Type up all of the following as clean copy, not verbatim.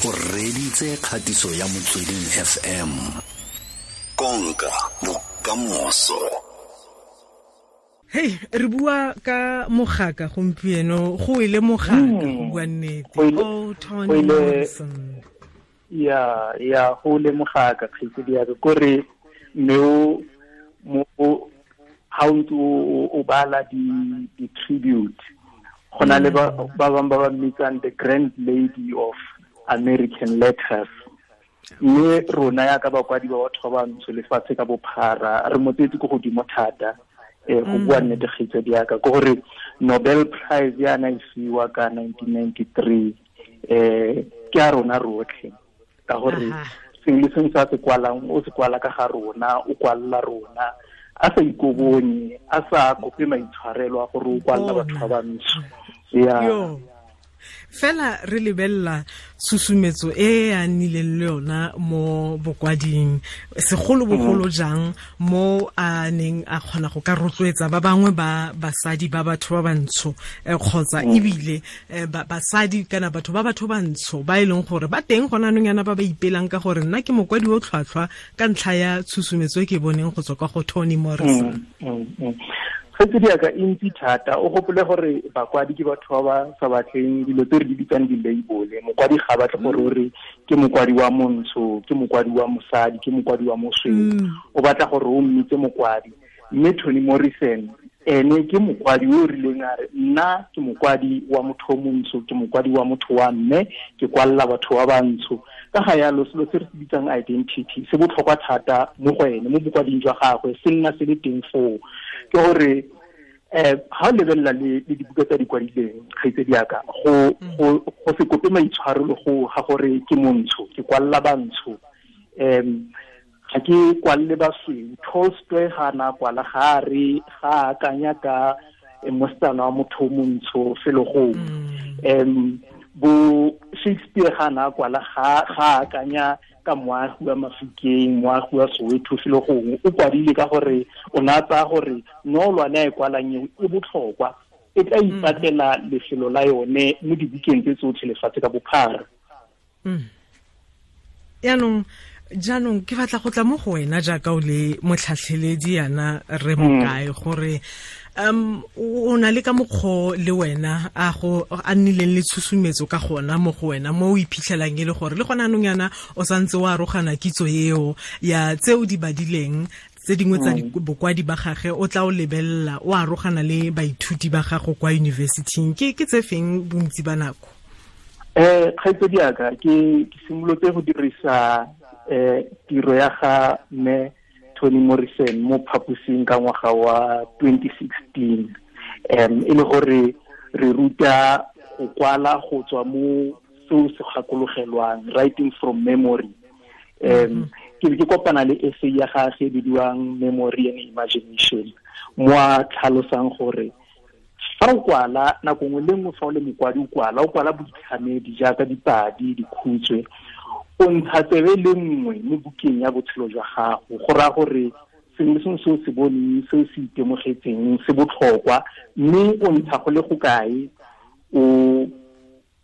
O reditse kgatiso ya Motsweding FM. Konka bokamoso. Hey, re bua ka mogaka gompieno, go ile mogaka go bua nnete. Oh, Toni Morrison. Ya, go le mogaka kgaitsedi ya ka kore mme o mo ha o ntse o bala di tribute go na le ba bangwe ba ba mmitsang the grand lady of American letters. Mme rona ya ka bakwadi ba batho ba bantsho lefatshe ka bophara re mo tsetse ko godimo thata go bua nnete kgaitsedi ya ka ke gore Nobel Prize ya na e fiwa ka 1993 ke a rona rotlhe ka gore sengwe le sengwe se a se kwalang o se kwala ka ga rona, o kwalla rona a sa ikobonye, a sa kope maitshwarelo a gore o kwalla batho ba bantsho. Ya fela re lebella susumetso e a nnileng le yona mo bokwading, segolobogolo jang mo a neng a kgona go ka rotloetsa ba bangwe ba basadi ba batho ba bantsho kgotsa ebile basadi kana batho ba batho bantsho ba e leng gore ba teng gona anong yana ba ba ipelang ka gore nna ke mokwadi o tlhwatlhwa ka ntlha ya tshusumetso e ke boneng go tswa kwa go Toni Morrison. Kgaitsedi ya ka e ntsi thata, o gopole gore bakwadi ke batho ba ba sa batleng dilo tse re di bitsang di-label. Mokwadi ga batle gore o re ke mokwadi wa montsho, ke mokwadi wa mosadi, ke mokwadi wa mosweu. O batla gore o mmitse mokwadi. Mme Toni Morrison ene ke mokwadi o rileng a re nna ke mokwadi wa motho o montsho, ke mokwadi wa motho wa mme, ke kwalla batho ba bantsho. Ka ga yalo selo se re se bitsang identity se botlhokwa thata mo go ene, mo bokwading jwa gagwe se nna se le teng foo. Ke gore ha o lebelela le dibuka tsa di kwadileng kgaitsedi ya ka, go se kope maitshwarelo go ga gore ke montsho, ke kwalla bantsho, ga ke kwalle basweu. Tolstoy ga na kwala ga re ga akanya ka mosetsana wa motho o montsho felo gongwe. Bo Shakespeare ga na kwala ga akanya ka moagi wa Mafikeng, moagi wa Soweto felo gongwe. O kwadile ka gore o ne a tsaya gore noolwane a e kwalang eo e botlhokwa, e tla ipatlela lefelo la yone mo dibukeng tse tsotlhe lefatshe ka bophara. Jaanong ke batla go tla mo go wena jaaka o le motlhatlheledi yana re mokae gore o na le ka mokgwa le wena a go a nnileng le tshusumetso ka gona mo go wena mo o iphitlhelang e le gore le gona anong yana o santse o arogana kitso eo ya tse o di badileng tse dingwe tsa bokwadi ba gage o tla o lebelela o arogana le baithuti ba gago kwa university-ing ke tse feng bontsi ba nako? Kgaitsedi ya ka ke simolotse go dirisa tiro ya ga mme Toni Morrison mo phaposing ka ngwaga wa 2016. E le gore re ruta go kwala go tswa mo seo se gakologelwang, writing from memory. Ke be ke kopana le essay ya gagwe e bidiwang Memory and Imagination, mo a tlhalosang gore fa o kwala nako nngwe le nngwe, fa o le mokwadi o kwala boitlhamedi jaaka dipadi, dikhutshwe, o ntsha tsebe le nngwe mo bukeng ya botshelo jwa gago. Go raya gore sengwe le sengwe se o se boneng, se o se itemogetseng se botlhokwa, mme o ntsha go le go kae, o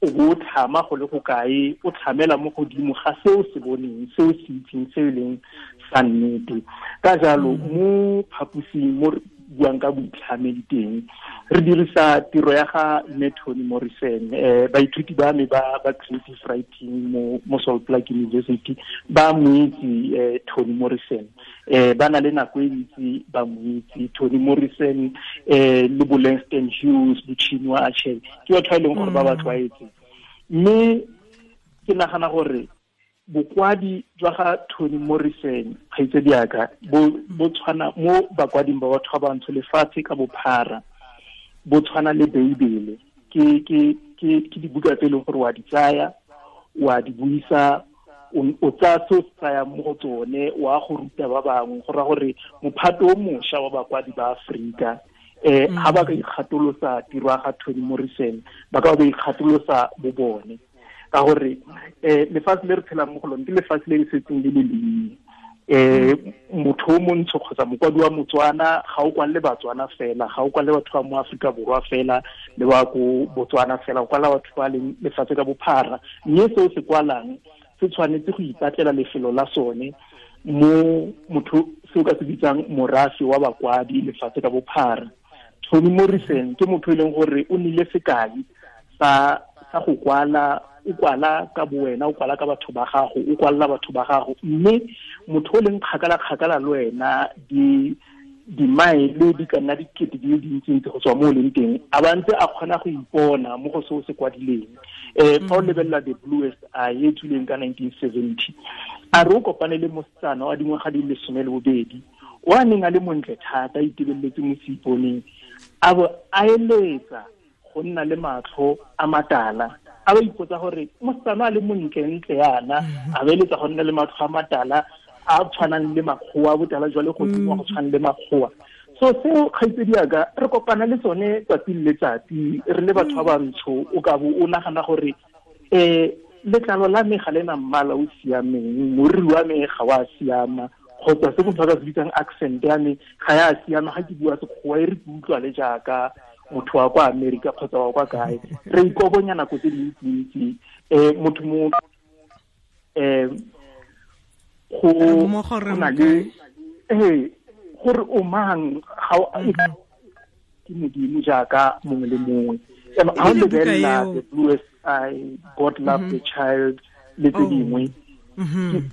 bo tlhama go le go kae, o tlhamela mo godimo ga se o se boneng, se o se itseng, se e leng sa nnete. Ka jalo mo phaposing mo re buang ka boitlhamedi teng, re dirisa tiro ya ga mme Toni Morrison. Baithuti ba me ba creative writing mo Salt Lake University ba mo itse Toni Morrison. Ba na le nako e ntsi ba mo itse Toni Morrison, le bo Langston Hughes, bo Chinua Achebe, ke batho ba e leng gore ba ba tlwaetse. Mme ke nagana gore bokwadi jwa ga Toni Morrison kgaitsedi ya ka bo tshwana mo bakwading ba batho ba bantsho lefatshe ka bophara, bo tshwana le Beibele. Ke dibuka tse e leng gore wa di tsaya, wa di buisa, o tsaya se o se tsayang mo go tsone, wa go ruta ba bangwe. Go raya gore mophato o mošwa wa bakwadi ba Aforika ha ba ka ikgatolosa tiro ya ga Toni Morrison, ba ka ba ikgatolosa bo bone. Ka gore lefatshe le re tshelang mo go lone ke lefatshe le le setseng le le lennye. Motho o montsho kgotsa mokwadi wa Motswana ga o kwalele Batswana fela, ga o kwalele batho ba mo Aforika Borwa fela le ba ko Botswana fela, o kwala batho ba leng lefatshe ka bophara. Mme se o se kwalang se tshwanetse go ipatlela lefelo la sone mo motho se o ka se bitsang morafe wa bakwadi lefatshe ka bophara. Toni Morrison ke motho e leng gore o nile sekai sa go kwala, o kwala ka bowena, o kwala ka batho ba gago, o kwalela batho ba gago, mme motho o leng kgakala-kgakala le wena dimaele di ka nna dikete di le dintsintsi go tswa mo o leng teng, a ba ntse a kgona go ipona mo go se o se kwadileng. Fa o lebelela The Bluest Eye e tswileng ka 1970, a re o kopane le mosetsana wa dingwaga di le 12 o a neng a le montle thata, a itebeletse mo seiponeng, a bo a eletsa go nna le matlho a matala. A ba ipotsa gore mosetsana a le montlentle yana, a ba eletsa go nna le matlho a matala a tshwanang le makgowa, botala jwa legodimo go tshwana le makgowa. So seo kgaitsedi yaka re kopana le tsone tsatsi le letsatsi re le batho ba bantsho. O ka bo o nagana gore letlalo la me ga le na mmala o siameng, moriri wa me ga wa siama, kgotsa se motho a ka se bitsang accent ya me ga ya siama, ga ke bua sekgowa e re ke utlwa le jaaka motho wa kwa Amerika kgotsa wa kwa kae. Re ikobonya nako tse dintsintsi. Motho mo go na le gore o mang ga ke Modimo jaaka mongwe le mongwe. Ha o lebelela The Bluest Eye, God Love the Child le tse dingwe,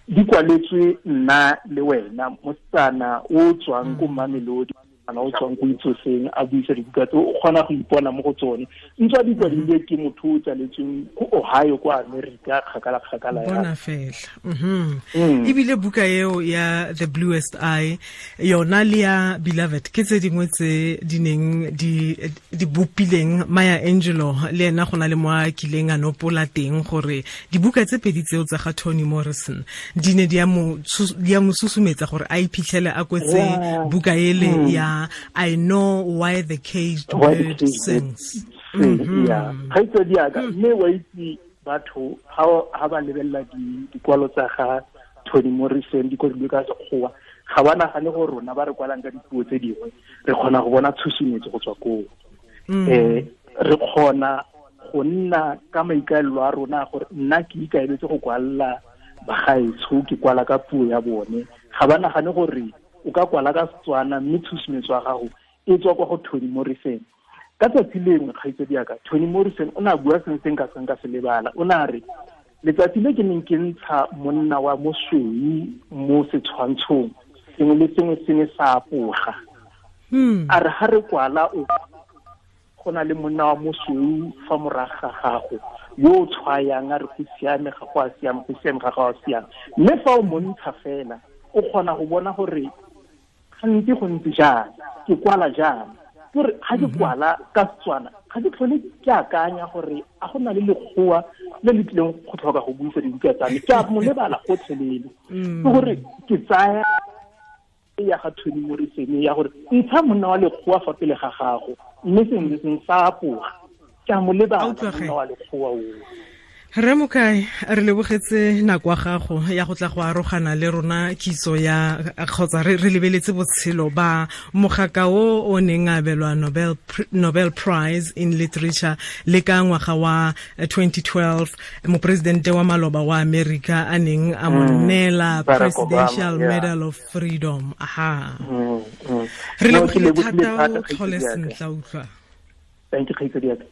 di kwaletswe nna le wena, mosetsana o tswang ko Mamelodi, o tswang ko Itsoseng, a buisa dibuka tse o kgona go ipona mo go tsone. Ntswa di kwadilwe ke motho o tsaletsweng ko Ohio kwa Amerika, kgakala-kgakala ya bona fela. Ebile buka eo ya The Bluest Eye yona le ya Beloved ke tse dingwe tse di neng di bopileng Maya Angelou, le ena go na le mo a kileng a nopola teng gore dibuka tse pedi tseo tsa ga Toni Morrison di ne di a mo susumetsa gore a iphitlhele a kwetse buka ele ya I Know Why the Caged Bird Sings. Kgaitsedi yaka, mme wa itse batho ha ba lebelela dikwalo tsa ga Toni Morrison di kwadilwe ka sekgowa, ga ba nagane gore rona ba re kwalang ka dipuo tse dingwe re kgona go bona tshusumetso go tswa koo. Re kgona go nna ka maikaelelo a rona gore nna ke ikaeletse go kwalela bagaetsho, ke kwala ka puo ya bone. Ga ba nagane gore o ka kwala ka Setswana mme tshusumetso ya gago e tswa kwa go Toni Morrison. Ka tsatsi lengwe kgaitsedi yaka, Toni Morrison o ne a bua sengwe se nka seng ka se lebala. O ne a re letsatsi le ke neng ke ntsha monna wa mosweu mo setshwantshong, sengwe le sengwe se ne sa apoga. A re ha re kwala o go na le monna wa mosweu fa morago ga gago yo o tshwayang a re go siame ga go a siama, go siame ga go a siama. Mme fa o montsha fela o kgona go bona gore gantsi go ntse jang, ke kwala jang. Ke gore ga ke kwala ka Setswana ga ke tlhole ke akanya gore a go na le lekgowa le le tlileng go tlhoka go buisa dibuka tsa me, ke a mo lebala gotlhelele. Ke gore ke tsaya ya ga Toni Morrison ya gore ntsha monna wa lekgowa fa pele ga gago, mme sengwe le sengwe sa apoga, ke a mo lebala monna wa lekgowa oo. Rre Mokae, re lebogetse nako ya gago ya go tla go arogana le rona kitso ya kgotsa re lebeletse botshelo ba mogaka o o neng a abelwa Nobel Prize in Literature le ka ngwaga wa 2012, moporesidente wa maloba wa Amerika a neng a mo neela Presidential Medal of Freedom. Aha. Re lebogile thata, o tlhole sentle, utlwa. Thank you, kgaitsedi.